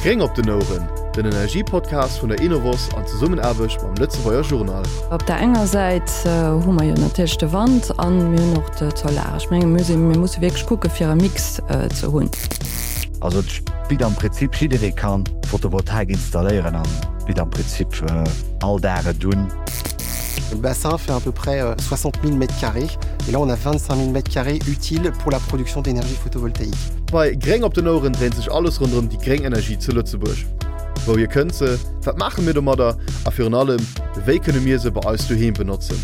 Gréng op den Oueren, den Energiepodcast vun der Enovos an Zesummenaarbecht mam Lëtzebuerger Journal. Op der enger Säit hu mer jo natierlech de Wand an mir hunn och d'Solar. Ech menge mir sinn, mir musse wierklech kucke fir e Mix ze hunn. Also et bitt am Prinzip jidderee kann Photovoltaik installéieren an bitt am Prinzip all Dag et un. Le bassin fait à peu près 60 000 mètres carrés et là on a 25 000 mètres carrés utiles pour la production d'énergie photovoltaïque. Bei Gréng op den Oueren dréint sech alles ronderëm déi gréng Energie zu Lëtzebuerg. Wouhier kënnt se, wat maache mir domadder a virun allem, wéi kënne mir se bei eis doheem benotzen?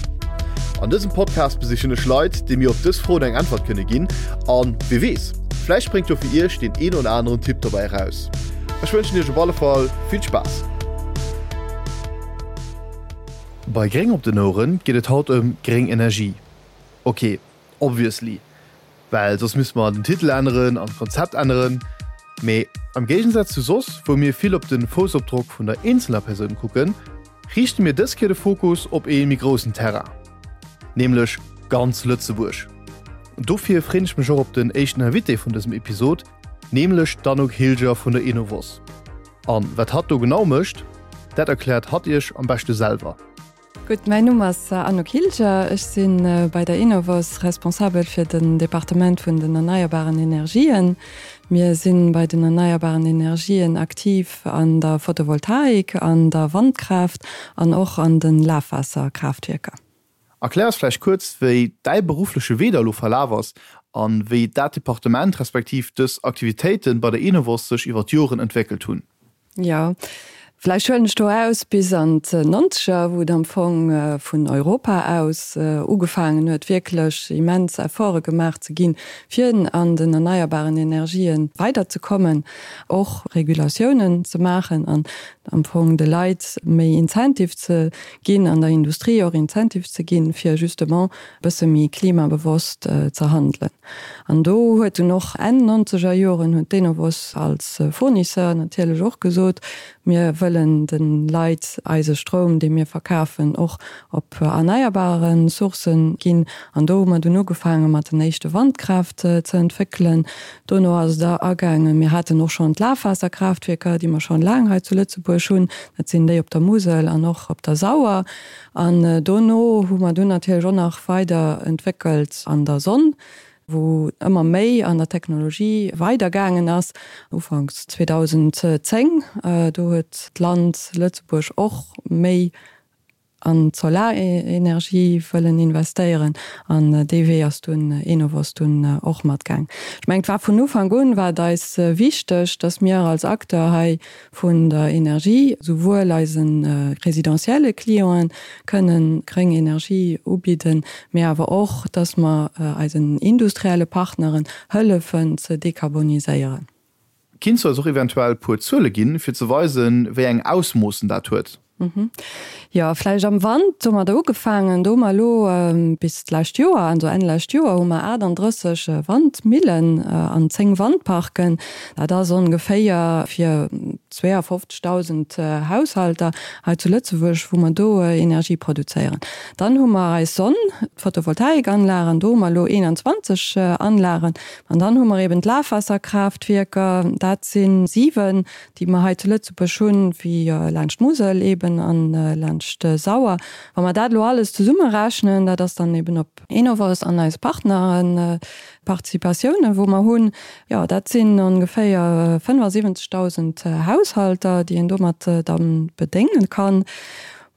An dësem Podcast besichen ech Leit, déi mir op dës Froen eng Äntwert kënne ginn an, wie weess, vläicht spréngt jo fir iech deen een oder aneren Tipp dobäi eraus. Ech wënschen iech op alle Fall vill Spaass! Bei Gréng op den Oueren geet et haut ëm gréng Energie. Ok, obviously, well soss misste mer den Titel änneren an d'Konzept änneren. Mee am Géigensaz zu soss, wou mir vill op de Foussopdrock vun der eenzeler Persoun kucken, riichte mir dës Kéier de Fokus op ee méi groussen Terrain, nämlech ganz Lëtzebuerg. Dofir freen ech mech och op den éischten Invité vun dësem Episod, nämlech d'Anouk Hilger vun der Enovos. An wat hatt do genau mécht, dat erkläert hatt iech am beschte selwer. Gutt, mäin Numm ass Anouk Hilger, ech si bei der Enovos responsabel fir den Departement vun den erneierbaren Energien. Mir si bei den erneierbaren Energien aktiv an der Photovoltaik, an der Wandkraaft an och an de Lafwaasserkraaftwierker. Erklär eis vläicht kuerz, wéi däi beruffleche Wee da elo verlaf ass an wéi dat Departement respektiv dës Aktivitéite bei der Enovos sech iwwer d'Joren entwéckelt hunn. Jo, vläicht huelen ech do aus bis an d'Nonzeger, wou et am Fong vun Europa aus ugefaangen huet, wierklech immens Efforte gemaach ze ginn, fir an den erneierbaren Energien weiderzekommen, och Regulatiounen ze maachen an am Fong de Leit méi Incentive ze ginn, an der Industrie och Incentive ze ginn, fir justement e bësse méi klimabewosst ze handelen. An do huet dunn och Enn nonzeger Joren huet d'Enovos als Fournisseur natierlech och gesot, mir wëllen de Leit eise Stroum, dee mir verkafen, och op erneierbare Sourcë ginn. An do hu mer dunn ugefaange mat den éischte Wandkraaft ze entwéckelen. Dono ass et agaangen, mir haten och schonn d'Lafwaasserkraaftwierker, déi mer schonn laang hei zu Lëtzebuerg hunn, dat sinn déi op der Musel an och op der Sauer. An dono hu mer dunn natierlech och nach weider entwéckelt an der Sonn, wou ëmmer méi an der Technologie weidergaangen ass. Ufanks 2010, do huet d'Land Lëtzebuerg och méi an d'Solarenergie wëllen investéieren an dee Wee ass dunn Enovos dunn och matgaang. Ech mengen, et war vun Ufank un war et eis wichteg, dass mir als Acteur hei vun der Energie souwuel eise residentielle Clienten kënnen gréng Energie ubidden, mee awer och, dass mer eisen industrielle Partneren hëllefen ze dekarboniséieren. Kinns du eis och eventuell puer Zuele ginn, fir ze weisen, wéi eng Ausmoossen dat huet? Jo, vläicht am Wand hu mer do ugefaangen. Do hu mer elo bis d'lescht Joer, also Enn lescht Joer, hu mer 38 Wandmillen an 10 Wandparken. Dat ass ongeféier fir 52.000 Haushalter hei zu Lëtzebuerg, wou mer do Energie produzéieren. Dann hu mer eis Sonn, d'Photovoltaikanlagen, do hu mer elo 21 Anlagen. An dann hu mer eben d'Lafwaasserkraaftwierker, dat si 7, déi mer hei zu Lëtzebuerg hunn, wéi laanscht d'Musel eben a laanscht d'Sauer. Wa mer dat elo alles zesummerechnen, dat ass dann eben op Enovos an eis Partneren, Participatiounen, wou mer hunn, jo, dat sinn ongeféier 75.000 Haushalter, déi een domat da bedéngen kann.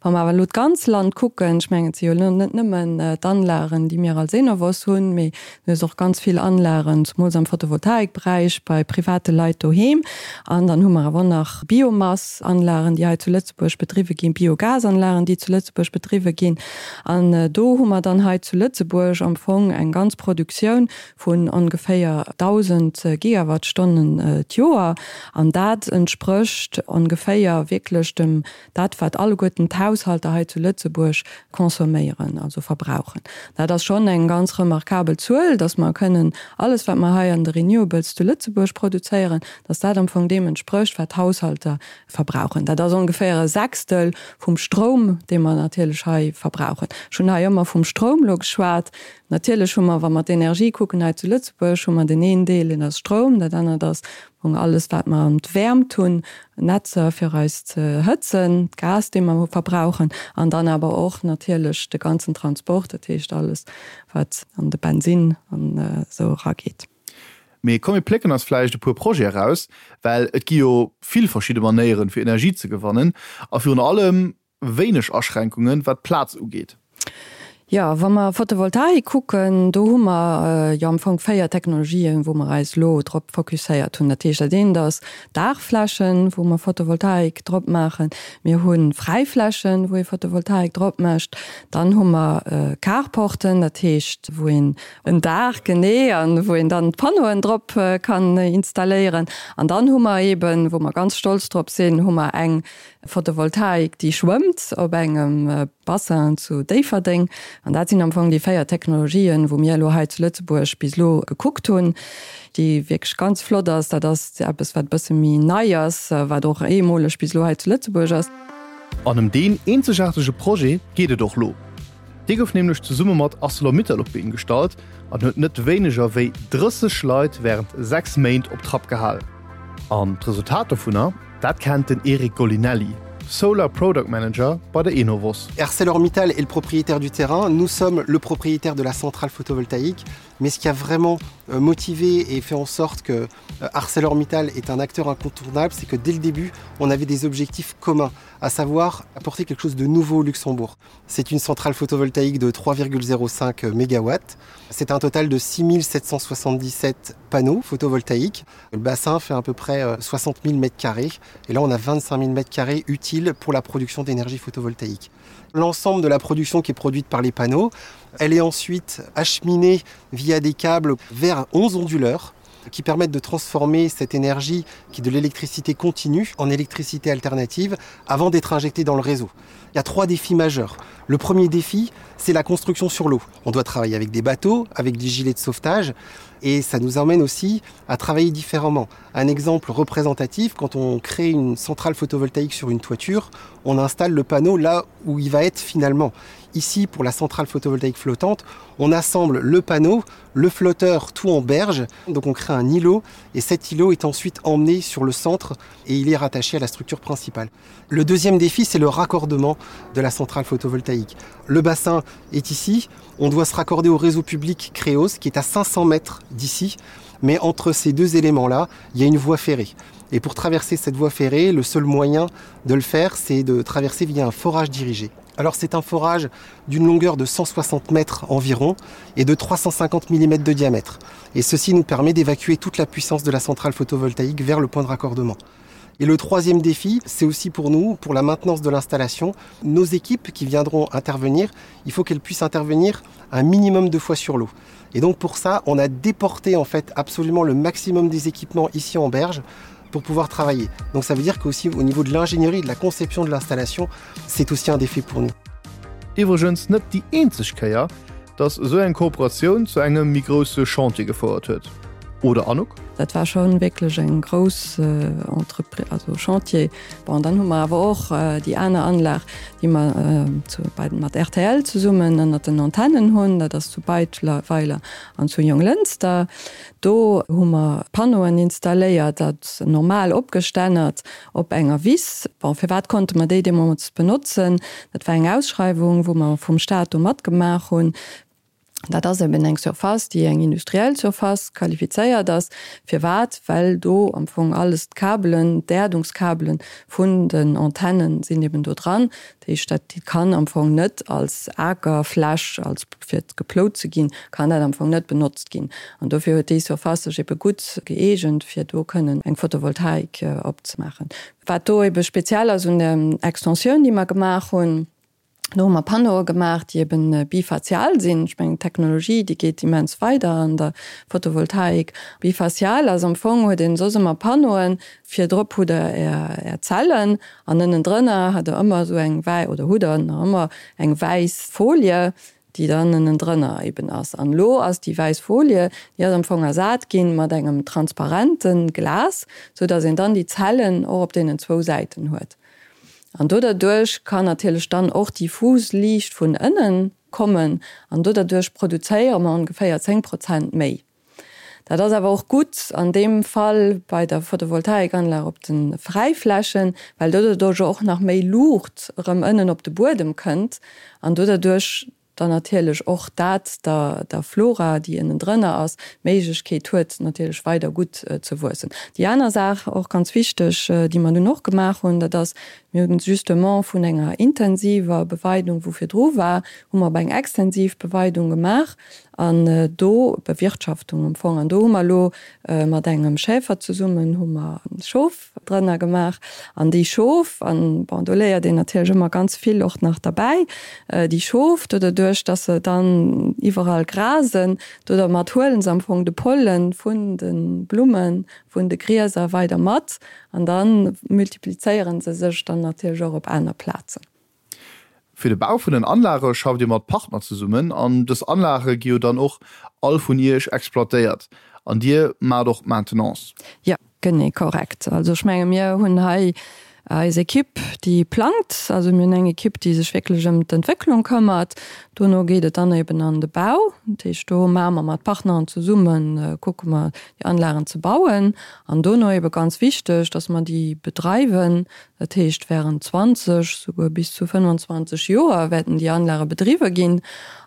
Wa mer awer elo d'ganz Land kucken, ech mengen, et si jo elo net nëmmen d'Anlagen, déi mir als Enovos hunn, mee du hues och ganz vill Anlagen, zemools am Photovoltaikberäich, bei private Leit doheem. An dann hu mer awer och nach Biomassanlagen, déi hei zu Lëtzebuerg bedriwwe ginn, Biogasanlagen, déi zu Lëtzebuerg bedriwwe ginn. An do hu mer dann hei zu Lëtzebuerg am Fong eng ganz Produktioun vun ongeféier 1.000 Gigawattstonnen d'Joer. An dat entsprécht ongeféier wierklech dem Dat, wat alleguerten d'Haushalter hei zu Lëtzebuerg consomméieren, also verbrauchen. Dat ass schonn eng ganz remarkabel Zuel, dass mer kënnen alles, wat mer hei an de Renewables zu Lëtzebuerg produzéieren, dass dat am Fong deem entsprécht, wat d'Haushalter verbrauchen. Dat ass ongeféier e Sechstel vum Stroum, dee mer natierlech hei verbrauchen. Ech hunn hei ëmmer vum Stroum elo geschwat. Natierlech hu mer, wa mer d'Energie kucken hei zu Lëtzebuerg, hu mer deen een Deel, deen ass Stroum, dat anert ass. Alles wat mer an d'Wäermt hunn, Netzer fir eis ze hëtzen, d'Gas dee mer verbrauchen an dann awer och natierlech de ganzen Transport, dat heescht alles wat an de Bensinn an esou erageet. Mee komm mir plécken eis vläicht e puer Projete eraus, well et gi jo vill verschidde Manéieren fir Energie ze gewannen a virun allem wéineg Aschränkungen, wat d'Plaz ugeet. Jo, wa mer Photovoltaik kucken, do hu mer jo am Fong 4 Technologien, wou mer eis elo drop fokusséiert hunn. Dat heescht, dat eent ass Daachflächen, wou mer Photovoltaik drop maachen. Mir hu Fräiflächen, wou ee Photovoltaik drop mécht. Dann hu mer Carporten, dat heescht, wou een en Daach, genee, a wou een dann d'Panneauen drop kann installéieren. An dann hu mer eeben, wou mer ganz stolz drop sinn, hu mer eng Photovoltaik, déi schwëmmt op engem Bassin zu Déifferdeng. An dat sinn am Fong déi 4 Technologien, wou mir elo hei zu Lëtzebuerg bis elo gekuckt hunn, déi wierklech ganz flott ass. Dat ass eppes, wat e bësse méi nei ass, wat och eemoleg bis elo hei zu Lëtzebuerg ass. An ëm deen eenzegaartege Projet geet et och lo. Dee gouf nämlech zesumme mat Arcelor-Mittal op d'Been gestallt an huet net wéineger wéi 30 Leit wärend 6 Méint op Trapp gehal. An d'Resultat dovunner, dat kennt den Eric Golinelli, Solar Product Manager bei der Enovos. ArcelorMittal est le propriétaire du terrain, nous sommes le propriétaire de la centrale photovoltaïque, mais ce qui a vraiment euh, motivé et fait en sorte que euh, ArcelorMittal est un acteur incontournable, c'est que dès le début, on avait des objectifs communs, à savoir apporter quelque chose de nouveau au Luxembourg. C'est une centrale photovoltaïque de 3,05 mégawatts. C'est un total de 6777 panneaux photovoltaïques. Le bassin fait à peu près 60 000 mètres carrés et là on a 25 000 mètres carrés utiles pour la production d'énergie photovoltaïque. L'ensemble de la production qui est produite par les panneaux, elle est ensuite acheminée via des câbles vers 11 onduleurs qui permettent de transformer cette énergie qui est de l'électricité continue en électricité alternative avant d'être injectée dans le réseau. Il y a trois défis majeurs. Le premier défi, c'est la construction sur l'eau. On doit travailler avec des bateaux, avec des gilets de sauvetage et ça nous emmène aussi à travailler différemment. Un exemple représentatif, quand on crée une centrale photovoltaïque sur une toiture, on installe le panneau là où il va être finalement. Ici, pour la centrale photovoltaïque flottante, on assemble le panneau, le flotteur tout en berge, donc on crée un îlot et cet îlot est ensuite emmené sur le centre et il est rattaché à la structure principale. Le deuxième défi, c'est le raccordement de la centrale photovoltaïque. Le bassin est ici, on doit se raccorder au réseau public Créos qui est à 500 mètres d'ici, mais entre ces deux éléments-là, il y a une voie ferrée. Et pour traverser cette voie ferrée, le seul moyen de le faire, c'est de traverser via un forage dirigé. Alors c'est un forage d'une longueur de 160 mètres environ et de 350 mm de diamètre. Et ceci nous permet d'évacuer toute la puissance de la centrale photovoltaïque vers le point de raccordement. Et le troisième défi, c'est aussi pour nous, pour la maintenance de l'installation, nos équipes qui viendront intervenir, il faut qu'elles puissent intervenir un minimum de fois sur l'eau. Et donc pour ça, on a déporté en fait absolument le maximum des équipements ici en berge pour pouvoir travailler. Donc ça veut dire qu'aussi au niveau de l'ingénierie, de la conception de l'installation, c'est aussi un défi pour nous. Iwwregens net déi eenzeg Kéier, dass esou eng Kooperatioun zu engem méi grousse Chantier gefouert huet, oder Anouk? Dat war schonn wierklech eng grouss Entreprise, also Chantier. Bon, dann hu mer awer och déi aner Anlag, déi mer zu bei mat rtl zesummen ënnert den Antennen hunn, dat ass zu Beidweiler an zu Jonglënster. Do hu mer Panneauen installéiert, dat normal opgestännert op enger Wiss. Bon, firwat konnte mer déi deemools benotzen? Dat war eng Ausschreiwung, wou mer vum Staat do matgemaach hunn. Dat ass eben eng Surface, déi eng industriell Surface qualifizéiert ass. Firwat? Well do am Fong alles d'Kabelen, d'Äerdungskabelen vun den Antennen sinn eben do dran. Dat heescht, dat kann am Fong net als Akerfläch, als fir geplout ze ginn, kann dat am Fong net benotzt ginn. An dofir huet déi Surface sech ebe gutt gëeegent, fir do kënnen eng Photovoltaik opzemaachen. Wat do ebe speziell ass un der Extensioun, déi mer gemaach hunn, do hu mer Panneaue gemaach, déi ebe bifacial sinn. Ech mengen, d'Technologie, déi geet immens weider an der Photovoltaik. Bifacial ass am Fong, huet een soss ëmmer Panneauen, virdrop hutt Der Är Zellen An ënnendrënner hat der ëmmer esou eng wäi, oder hutt der nach ëmmer, eng wäiss Folie, déi dann ënnendrënner eben ass. An elo ass déi wäiss Folie, déi ass am Fong ersat ginn mat engem transparente Glas, sou datt een dann déi Zellen och op deenen zwou Säiten huet. An do derduerch kann natierlech dann och diffus Liicht vun ënnen kommen an do derduerch produzéiere mer ongeféier 10 Prozent méi. Dat ass awer och gutt an deem Fall bei der Photovoltaikanlag op de Fräiflächen, well doduerch och nach méi Luucht erëm ënnen op de Buedem kënnt an doduerch dann natierlech och dat der der Flora, déi ënnendrënner ass, d'Méiglechkeet huet, natierlech weider gutt ze wuessen. Déi aner Saach, och ganz wichteg, déi mer dunn och gemaach hunn, dat ass, mir hunn justement vun enger intensiver Beweidung, wou virdru war, hu mer op eng extensiv Beweidung gemaach an do, Bewirtschaftung am Fong, an do hu mer elo mat engem Schäfer zesummen hu mer Schof, drënner gemaach an déi Schof, an bon do léiert een natierlech ëmmer ganz vill och nach derbäi, déi Schof do doduerch dass se dann iwwerall grasen, do dermat huelen se am Fong de Pollen vun de Blummen, vun de Grieser weider mat an da multiplizéieren se sech dann natierlech och op aner Plazen. Fir de Bau vun den Anlage schafft Dir mat Partner zesummen an dës Anlage gi jo dann och all vun Iech exploitéiert an Dir maacht och d'Maintenance? Jo, genee, korrekt. Also ech menge mir hunn hei eis Ekipp, déi plangt. Also mir hunn eng Ekipp, déi sech wierklech ëm d'Entwécklung këmmert. Dono geet et dann eben an de Bau. Dat heescht, do maache mer mat Partneren zesummen, kucke mer déi Anlagen ze bauen. An dono ebe ganz wichteg, datt mer déi bedreiwen, Dat heescht, während 20, souguer bis zu 25 Joer wäerten déi Anlage bedriwwe ginn.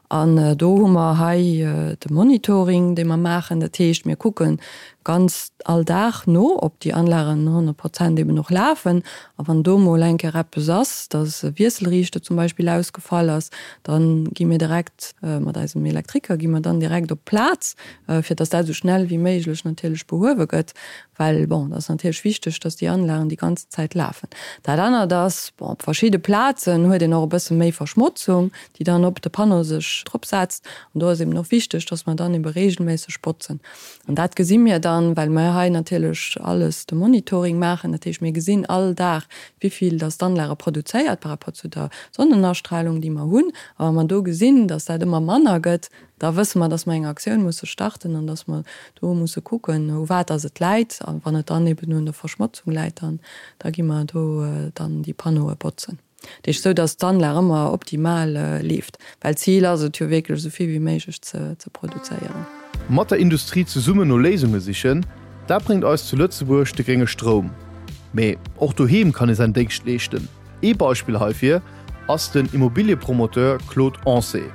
An do hu mer hei de Monitoring, dee mer maachen. Dat heescht, mir kucke ganz all Dag no, ob déi Anlagen 100 Prozent eben och lafen. A wann do mol eng Kéier eppes ass, dass e Wiesselriichter zum Beispill ausgefall ass, da gi mir direkt mat eisem Elektriker gi mer dann direkt op d'Plaz, fir dass dat esou schnell wéi méiglech natierlech behuewe gëtt. Well, bon, et ass natierlech wichteg, dass déi Anlagen déi ganzen Zäit lafen. Dat anert ass, bon, op verschidde Plazen huet een och e bësse méi Verschmotzung, déi dann op de Panneau sech dropsetzt. An do ass eben och wichteg, dass mer dann ebe reegelméisseg botzen. An dat gesi mir dann, well mir hei natierlech alles de Monitoring maachen. Dat heescht, mir gesinn all Dag, wivill dass d'Anlage produzéiert par rapport zu der Sonnenastrahlung, déi mer hunn. A wa mer do gesinn, dass dat ëmmer manner gëtt, Da wësse mer, dass mer eng Aktioun musse starten an dass mer do musse kucken, u wat dass et läit. A wann et dann eben un der Verschmotzung läit, dann da gi mer do dann déi Panneaue botzen. Dat heescht, esou dass d'Anlag ëmmer optimal leeft, well d'Zil ass et jo wierklech, esou vill wéi méiglech ze ze produzéieren. Mat der Industrie zesummen no Léisunge sichen, dat bréngt eis zu Lëtzebuerg de grénge Stroum. Mee och doheem kann ee säin Déngscht leeschten. Ee Beispill heifir ass den Immobiliepromoteur Claude Ancet.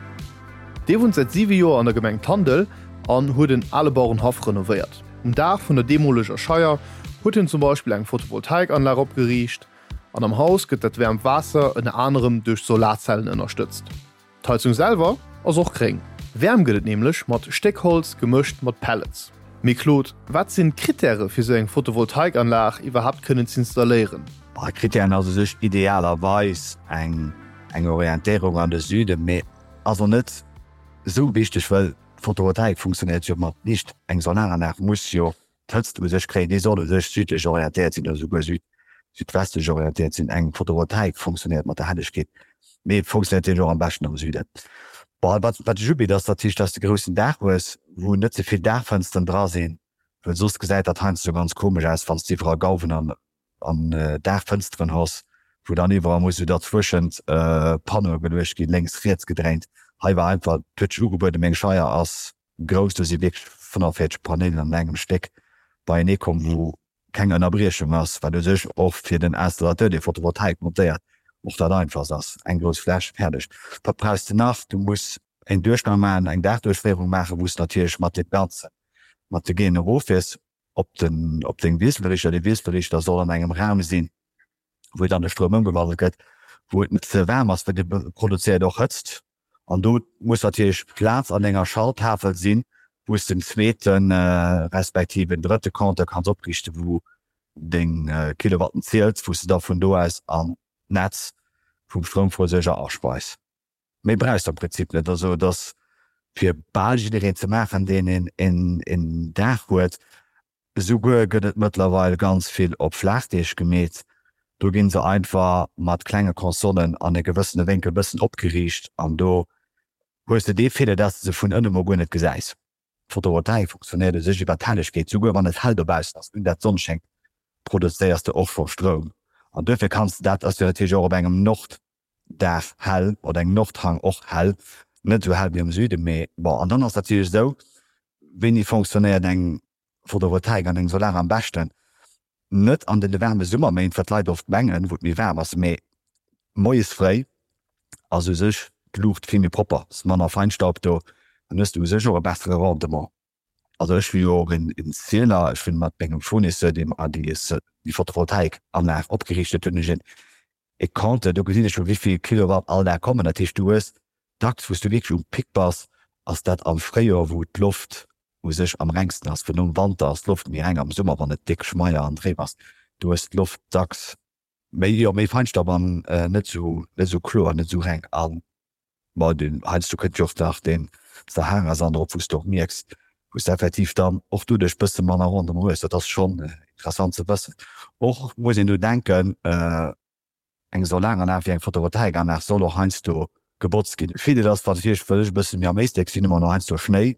Dee wunnt säit 7 Joer an der Gemeng Tandel an huet en ale Bauerenhaff renovéiert. Um Daach vun der deemoleger Scheier huet hien zum Beispill eng Photovoltaikanlag opgeriicht an am Haus gëtt dat wäermt Waasser ënner anerem duerch Solarzellen ënnerstëtzt. D'Heizung selwer ass och gréng. Wäerm gëtt et nämlech mat Stéckholz gemëscht mat Pellets. Mee Claude, wat sinn d'Krittäre fir sou eng Photovoltaikanlag iwwerhaapt kënnen z'installéieren? Krittären ass u sech idealerweis eng Orientéierung an de Süden, mee ass och net esou wichteg, well d'Photovoltaik funktionéiert jo mat Liicht. Eng Solaranlag muss jo d'Hëtzt u sech kréien, déi soll u sech südlech orientéiert sinn oder souguer südwestlech orientéiert sinn. Eng Photovoltaik funktionéiert mat der Hellegkeet, mee funktionéiert natierlech och am beschten am Süden. Bon, wat wat sech ubitt, ass natierlech, dass de groussen Daach hues, wou net ze vill Daachfënsteren dra sinn, well soss gesäit dat heiansdo ganz komesch aus, wann s de iwwerall Gauwen an an Daachfënsteren hues, wou dann iwwerall muss esou derzwëschent Panneaue geluecht ginn, lénks, riets gedréint. Hei war einfach, et huet sech ugebueden, meng Scheier ass grouss, do si wierklech 45 Panneauen an engem Stéck beienee komm, wou keng Ënnerbriechung ass, wat u sech och fir den Installateur, dee Photovoltaik montéiert, och dat einfachst ass, eng grouss Fläch, fäerdeg. Wat brauchs de nach? Du muss en Duerchgang maachen, eng Daachduerchféierung maachen, wou s de natierlech mat deem Ganzen, mat de Géen eroffiers op den, op deng Wiesselrichter. Dee Wiesselrichter soll an engem Raum sinn, wou dann de Stroum ëmgewandelt gëtt, wou et net ze waarm ass, well dee produzéiert och Hëtzt. An do muss natierlech Plaz an enger Schalttafel sinn, wou s de en zweete respektiv en drëtte Compteur kanns opriichten, wou deng Kilowatten ziels, wou s de da vun do aus an d'Netz vum Stroumversuerger aspeis. Méi brauchs de am Prinzip net. Also et ass fir bal jiddereen ze maachen, deen een Daach huet. Esouguer gëtt et mëttlerweil ganz vill op Flaachdeeg gemeet. Do ginn se einfach mat klenge Consolen an e gewëssene Wénkel bëssen opgeriicht an do hues de dee Feeler, dass de se vun ënne mol guer net gesäis. D'Photovoltaik funktionéiert u sech iwwer d'Hellegkeet, souguer wann et hell dobaussen ass, un dat d'Sonn schéngt, produzéiers de och scho Stroum an duerfir kanns de dat, ass jo natierlech och op engem Nord Dag hell oder engem Nordhang och hell, net esou hell wéi am Süden, mee bon. An dann ass natierlech esou, Wéini fonctionnéiert eng Photovoltaik an eng Solar am beschten? Net an den waarme Summerméint, wat d'Leit oft mengen, wou et méi waarm ass, mee moies fréi ass u sech d'Luucht vill méi propper, ass manner Feinstaub do, dann hues de u sech och e bessere Rendement. Also ech hu jo och een Zieler, ech hunn mat mengem Fournisseur, dee mer déi Photovoltaikanlag opgeriicht huet, hunn ech een e Compteur, do gesinn ech jo wéivill Kilowatt all Dag kommen. Dat heescht du hues dacks, wou s du wierklech um Pic bass, ass dat am Fréijoer, wou d'Loft u sech am rengsten ass, well nom Wanter ass d'Loft méi reng, am Summer wann et déck schmeier an dréif ass, do hues d'Loft dacks méi, jo méi Feinstaub an net sou, net sou kloer, net sou reng. An ma den heiansdo kënnt jo och nach den Sahara-Sand erop, wou s de och mierks, wou s de effektiv dann och doduerch bësse manner Rendement hues. Dat ass schonn interessant ze wëssen. Och muss een do denken, Eng Solaranlag wéi eng Photovoltaikanlag soll och heiansdo gebotzt ginn. Virdeel ass natierlech, well ech e bësse méi am Éislek sinn, hu mer och heiansdo Schnéi.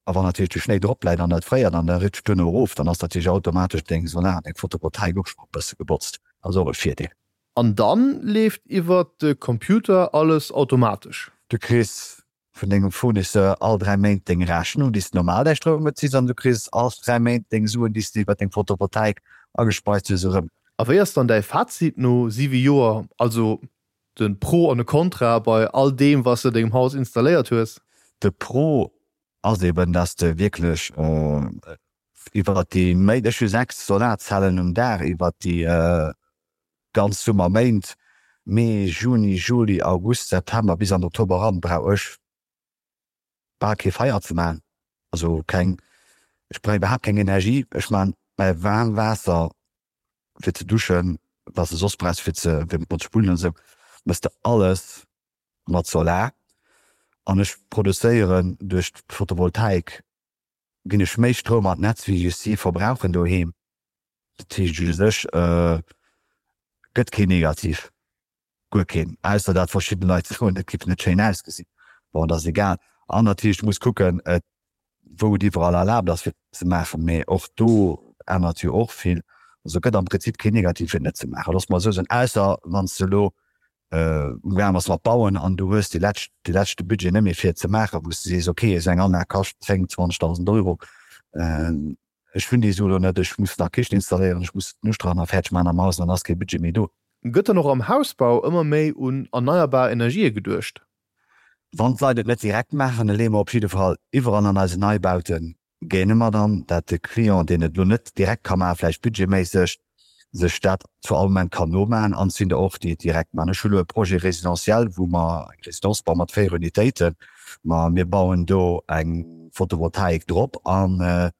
A wann natierlech de Schnéi drop läit an dat fréiert an da ritscht duerno erof, dann ass natierlech automatesch deng Solar an deng Photovoltaik och scho e bësse gebotzt. Ass och e Virdeel. An dann leeft iwwert de Computer alles automatesch. Du kriss vun dengem Fournisseur all 3 Méint deng Rechnung, déi s de normal däi Stroum beziss, an du kriss all 3 Méint deng Suen, déi s de iwwer deng Photovoltaik agespeist hues, erëm. A wéi ass dann däi Fazit no 7 Joer, also de Pro an de Kontra bei all deem, wat s de dengem Haus installéiert hues? De Pro ass eben, dass de wierklech iwwer déi Méint, ech hu 6 Solarzellen um Daach, iwwer déi ganz Summerméint, Mee, Juni, Juli, August, September bis an Oktober eran, brauch ech bal kee Feier ze maachen, also keng, ech brauch iwwerhaapt keng Energie. Ech maachen mäi waarm Waasser fir ze duschen, wat s de soss brauchs fir ze fir mat ze spullen an esou, méchs de alles mat Solar. An ech produzéieren duerch d'Photovoltaik ginn ech méi Stroum an d'Netz wéi ech si verbrauchen doheem. Dat heescht u sech gëtt keen negativ, guer keen, ausser dat verschidde Leit soen, et géif net schéin ausgesinn. Bon, dat ass egal. An natierlech, du muss kucken, wou et iwwerall erlaabt ass fir ze maachen, mee och do ännert jo och vill. Also gëtt am Prinzip keen negativ fir et net ze maachen, loosse mer esou soen, ausser wann s de elo amgaang bass mat bauen an du hues dee lescht, dee leschte Budget net méi fir et ze maachen, wou s de sees, okay, esou eng Anlag kascht 10, 20.000 Euro. Ech hunn déi Sue lo net, ech muss nach Kichen installéieren, ech muss d'Nuschterhanner fäerdeg maachen am Haus an dann ass kee Budget méi do. Gëtt dann och am Hausbau ëmmer méi un erneierbar Energië geduecht? Wann d'Leit et net direkt maachen, da leeë mer op jidde Fall iwwerall an eisen Neibaute géine mer dann, dat de Client, deen et lo net direkt ka maachen, vläicht budgetméisseg, sech dat zu all Moment kann nomaachen. An et sinn der och, déi et direkt maachen. Ech hu lo e Projet résidentiel, wou mer eng Résidence bauen mat 4 Unitéiten. Ma mir bauen do eng Photovoltaik drop an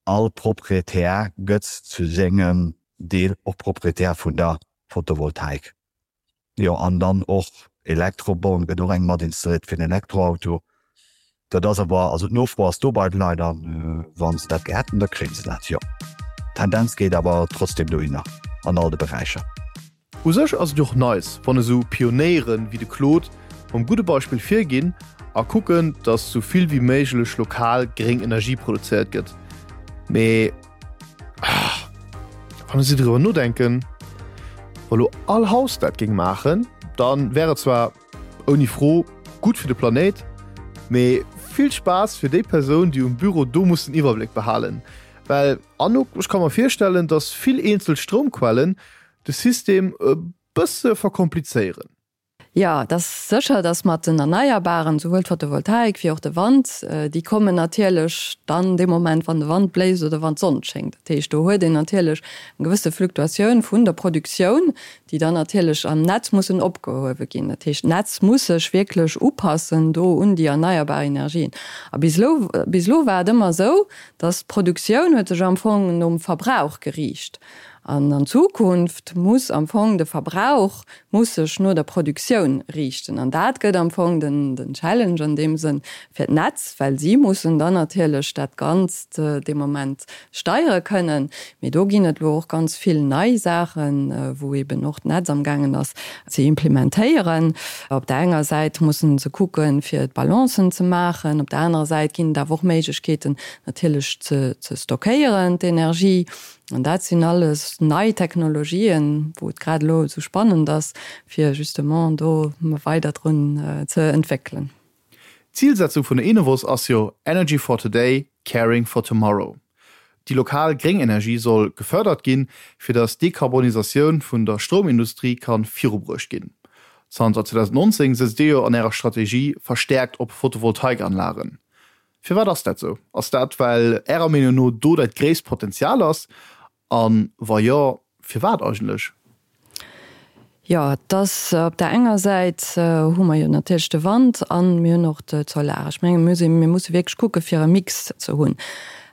all Proprietär gëtt zu sengem Deel och Proprietär vun der Photovoltaik. Jo, an dann och Elektroborn gëtt och eng mat installéiert fir den Elektroauto. Dat ass awer, also d'Nofro ass do bei de Leit a wa se dat gär hätten, da kréie se dat, jo. D'Tendenz geet awer trotzdem dohinner an all de Beräicher. U sech ass et jo och nice, wann esou Pionéiere wéi de Claude mam gudde Beispill virginn a kucken, datt sou vill wéi méiglech lokal gréng Energie produzéiert gëtt. Mee wann ech esou driwwer nodenken, wa lo all Haus dat géing maachen, da wär et zwar ouni Fro gutt fir de Planéit, mee vill Spaass fir déi Persoun, déi um Büro do muss den Iwwerbléck behalen. Well Anouk, ech ka mer virstellen, datt vill eenzel Stroumquellen de System e bësse verkomplizéieren. Jo, et ass sécher, datt mat den Erneierbaren, souwuel d'Photovoltaik wéi och de Wand, déi kommen natierlech dann dee Moment, wann de Wand bléist oder wann d'Sonn schéngt. Dat heescht, do huet een natierlech eng gewësse Fluktuatioun vun der Produktioun, déi dann natierlech am Netz mussen opgehuewe ginn. Dat heescht, d'Netz muss sech wierklech upassen do un déi erneierbar Energien. A bis elo, bis elo war et ëmmer esou, datt d'Produktioun huet sech am Fong nom Verbrauch geriicht. An an Zukunft muss am Fong de Verbrauch muss sech no der Produktioun riichten. An dat gëtt am Fong den den Challenge an deem Sënn fir d'Netz, well si mussen dann natierlech dat Ganzt dee Moment steiere kënnen. Mee do ginn et elo och ganz vill nei Saachen, wou eeben och d'Netz amgaangen ass ze implementéieren. Op der enger Säit mussen se kucken, fir d'Balancen ze maachen, op der anerer Säit ginn et awer och Méiglechkeeten natierlech ze ze stockéieren, d'Energie. An dat sinn alles nei Technologien, wou et grad elo esou spannend ass, fir justement do weider drun ze entwéckelen. D'Zilsetzung vun der Enovos ass jo Energy for today, Caring for Tomorrow. Déi lokal gréng Energie soll gefërdert ginn, fir datt d'Dekarbonisatioun vun der Stroumindustrie ka virubruecht ginn. Zanter 2019 sëtzt Dir jo an Ärer Strategie verstäerkt op Photovoltaikanlagen. Firwat ass dat sou? Ass dat well Ärer Meenung no do dat gréisst Potenzial ass? A wa jo, firwat eigentlech? Jo, et ass op där enger Säit hu mer jo natierlech de Wand a mir hunn och d'Solar. Ech menge mir mir musse wierklech kucke fir e Mix ze hunn.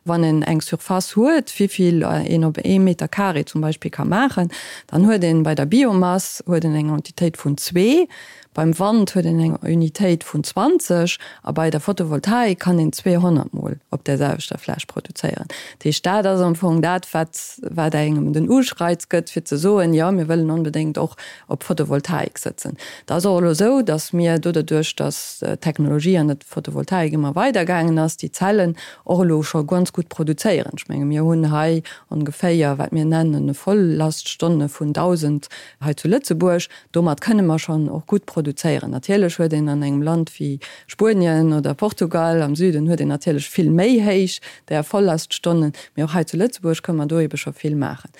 Wann een eng Surface huet, wéi vill een op ee Meter carré zum Beispill ka maachen, dann huet een bei der Biomass huet een eng Entitéit vun zwee. Beim Wand huet een eng Unitéit vun 20 a bei der Photovoltaik kann een 200 mol op där selwechter Fläch produzéieren. Dat heescht, dat ass am Fong dat, wat, wat engem den Ureiz gëtt, fir ze soen, jo, mir wëllen onbedéngt och op Photovoltaik sëtzen. Et ass och elo esou, datt mir doderduerch, datt d'Technologie an der Photovoltaik ëmmer weidergaangen ass, déi Zellen och elo scho ganz gutt produzéieren. Ech menge mir hunn hei ongeféier, wat mir nennen, Volllaststonne vun 1.000 hei zu Lëtzebuerg. Domat kënne mer schonn och gutt produzéieren. Natierlech huet een an engem Land wéi Spuenien oder Portugal am Süden huet een natierlech vill méi héich där Vollaststonnen, mee och hei zu Lëtzebuerg kënne mer do ebe scho vill maachen.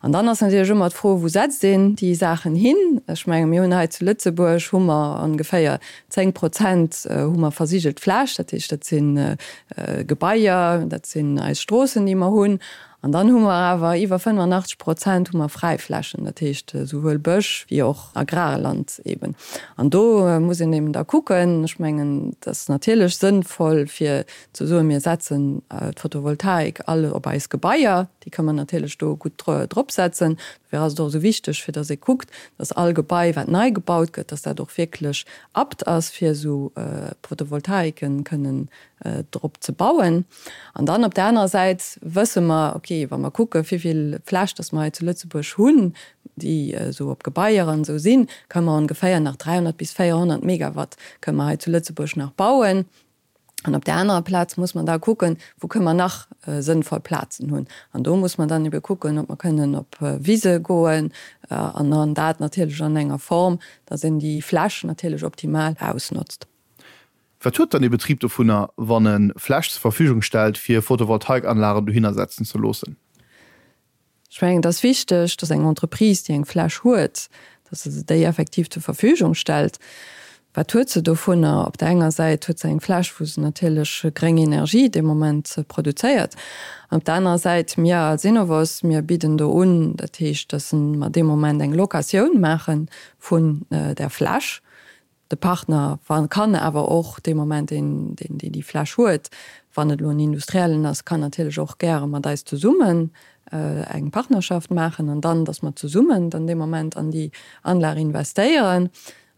An dann ass natierlech ëmmer d'Fro, Wou setzt een déi Saachen hin? Ech menge mir hunn hei zu Lëtzebuerg hu mer ongeféier 10 Prozent hu mer versigelt Fläch, dat heescht dat si Gebaier, dat sinn eis Stroossen déi mer hunn. An dann hu mer awer iwwer 85 Prozent hu mer Fräiflächen, dat heescht esouwuel Bësch wéi och Agrarland eben. An do muss een eben da kucken, ech mengen, et ass natierlech sënnvoll fir ze soen, mir setzen d'Photovoltaik all op eis Gebaier, déi ka mer natierlech do gutt drop setzen. Dofir ass et och esou wichteg, fir datt ee kuckt, datt all Gebai wat nei gebaut gëtt, datt dat och wierklech apt ass fir esou Photovoltaiken kënnen drop ze bauen. An dann op där anerer Säit wësse mer, okay, wa mer kucke wéivill Fläch dass mer hei zu Lëtzebuerg hunn, déi esou op Gebaier an esou sinn, kënne mer ongeféier nach 300 bis 400 Megawatt kënne mer hei zu Lëtzebuerg nach bauen. An op där anerer Plaz muss mer da kucken, wou kënne mer nach sënnvoll Plazen hunn. An do muss mer dann ebe kucken, ob mer kënnen op Wise goen an dann dat natierlech an enger Form, dass een déi Fläch natierlech optimal ausnotzt. Wat huet dann ee Betrib dovunner, wann e Fläch zur Verfügung stellt, fir Photovoltaikanlagen dohinner setzen ze loossen? Ech mengen, et ass wichteg, dass eng Entreprise, déi eng Fläch huet, dass se déi effektiv zur Verfügung stellt. Wat huet se dovunner? Op der enger Säit huet se eng Fläch, wou se natierlech gréng Energie dee Moment produzéiert. An op der anerer Säit, mir als Enovos, mir bidden do un, dat heescht, dass mer dee Moment eng Locatioun maache vun där Fläch. De Partner kann awer och dee Moment, deen deen déi Fläch huet, wann et elo en Industriellen ass, kann natierlech och gäre mat eis zesummen eng Partnerschaft maachen an dann, datt mer zesummen dann dee Moment an déi Anlag investéieren.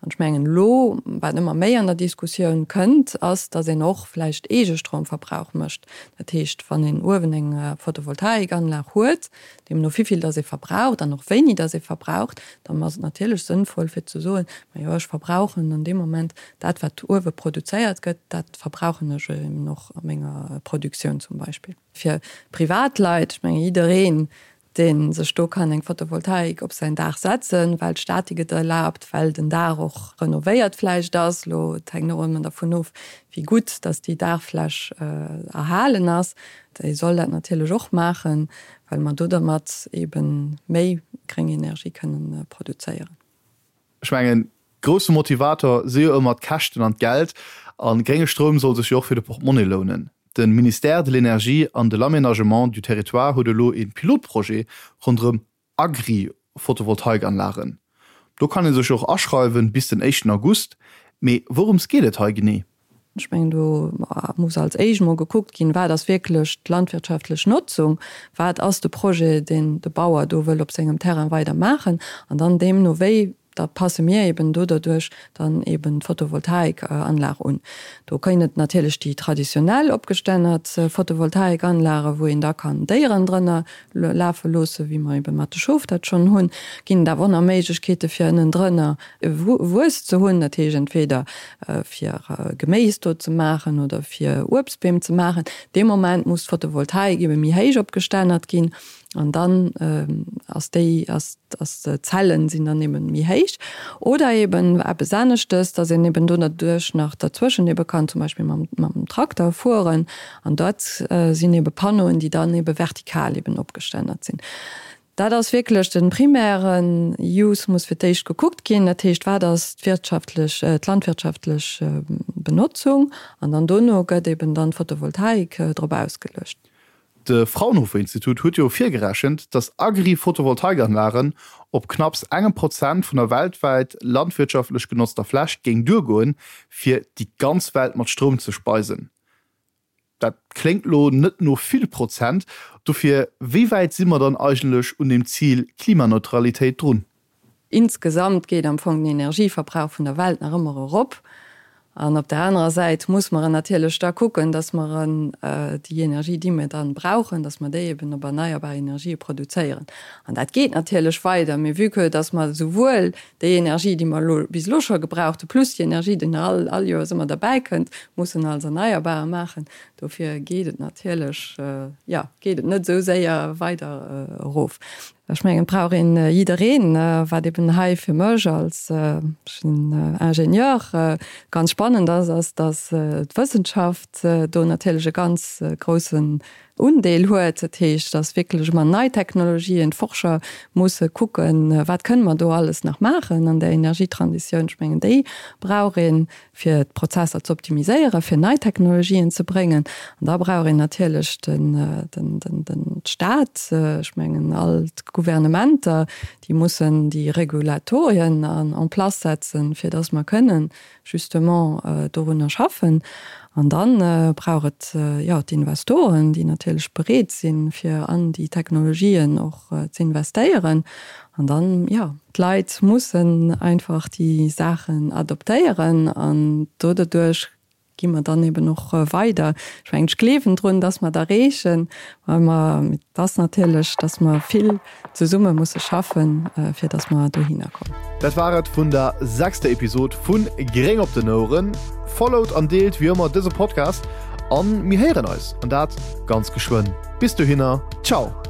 An ech mengen elo, wat ëmmer méi an der Diskussioun kënnt, ass, datt een och vläicht Eegestromverbrauch mécht. Dat heescht, wann een uewen eng Photovoltaikanlag huet, Deemno wéivill dass ee verbraucht an och wéini dass ee verbraucht, dann ass et natierlech sënnvoll fir ze soen, majo ech verbrauchen an deem Moment dat wat uewe produzéiert gëtt, dat verbrauchen ech eben och a menger Produktioun zum Beispill. Fir Privatleit, ech menge jiddereen dee sech do kann eng Photovoltaik op säin Daach setzen, well d'Statik et erlaabt, well den Daach och renovéiert vläicht ass, elo et hänkt och ëmmer dervun of wéi gutt dass déi Daachfläch erhalen ass, Déi soll dat natierlech och maachen, well mer do dermat ebe méi gréng Energie kënnen produzéieren. Ech mengen, grousse Motivator si jo ëmmer d'Käschten an d'Geld. A grénge Stroum soll sech jo och fir de Portemonnaie lounen. De Ministère de l'Énergie an de l'Aménagement du Territoire huet elo ee Pilotprojet ronderëm Agri-Photovoltaikanlagen. Do kann ee sech och aschreiwen bis den éischten August. Mee wourëms geet et hei genee? Ech mengen, do muss als éischt emol gekuckt ginn, wat ass wierklech d'landwirtschaftlech Notzung, wat ass de Projet, deen de Bauer do wëll op sengem Terrain weider maachen, an dann deemno wéi Da passe mir eben do derduerch dann eben d'Photovoltaikanlag un. Do ginn et natierlech déi traditionell opgestännert Photovoltaikanlage wou een da kann Déieren drënner lafe loosse, wéi mer eben mat de Schof dat schonn hunn. Ginn et awer och nach Méiglechkeete fir ënnendrënner Wues ze hunn, dat heescht entweder fir Geméis do ze maachen oder fir Uebstbeem ze maachen. Dee Moment muss d'Photovoltaik ebe méi héich opgestännert ginn. An dann ass déi, ass, ass d'Zellen sinn dann eben méi héich. Oder eben eppes aneschtes, dass een eben do derduerch nach derzwëschen ebe kann zum Beispill mam, mam Trakter fueren. An dat sinn ebe Panneauen, déi dann ebe vertikal eben opgestännert sinn. Dat ass wierklech de primären Use muss fir d'éischt gekuckt ginn. Dat heescht, wat ass d'wirtschaftlech, d'landwirtschaftlech Benotzung? An dann dono gëtt eben dann d'Photovoltaik drop ausgeluecht. De Fraunhofer Institut huet jo virgerechent, datt Agri-Photovoltaikanlagen op knapps engem Prozent vun der weltwäit landwirtschaftlech genotzter Fläch géing duergoen, fir déi ganz Welt mat Stroum ze speisen. Dat kléngt lo net no vill Prozent. Dofir, wéi wäit si mer dann eigentlech un dem Zil Klimaneutralitéit drun? Insgesamt geet am Fong den Energieverbrauch vun der Welt nach ëmmer erop. An op der anerer Säit muss mer natierlech da kucken, dass mer déi Energie, déi mir dann brauchen, dass mer déi eben op erneierbar Energië produzéieren. An dat geet natierlech weider. Mee vue que dass mer souwuel déi Energie, déi mer elo bis elo scho gebraucht hu, plus déi Energie, déi nach all all Joers ëmmer derbäikënnt, mussen als erneierbare maachen, dofir geet et natierlech, jo, geet et net esou séier weider erof. Ech mengen, et brauch een jiddereen, wat eben hei fir mech als, ech sinn Ingenieur, ganz spannend ass, ass, datt d'Wëssenschaft do natierlech e ganz groussen Undeel huet. Dat heescht, datt wierklech ëmmer nei Technologien, d'Forscher musse kucken, wat kënne mer do alles nach maachen an der Energietransitioun. Ech mengen, déi brauch een. fir d'Prozesser ze optimiséieren, fir nei Technologien ze bréngen. An da brauch een natierlech den Staat, ech mengen all d'Gouvernementer, déi mussen déi Regulatorien en place setzen, fir datt mer kënnen justement dorunner schaffen. An da brauch et, jo, d'Investoren, déi natierlech bereet sinn, fir an déi Technologien och ze investéieren. An dann, jo, d'Leit mussen einfach déi Saachen adoptéieren an do doduerch gi mer dann eben och weider. Ech mengen, ech gleewen drun, dass mer et erreechen, well mer, et ass natierlech, dass mer vill zesumme musse schaffen, fir dass mer dohinner kommen. Dat war et vun der sechster Episod vun Gréng op den Oueren. Followt an deelt wéi ëmmer dëse Podcast an mir héieren eis, an dat ganz geschwënn. Bis dohinner, ciao!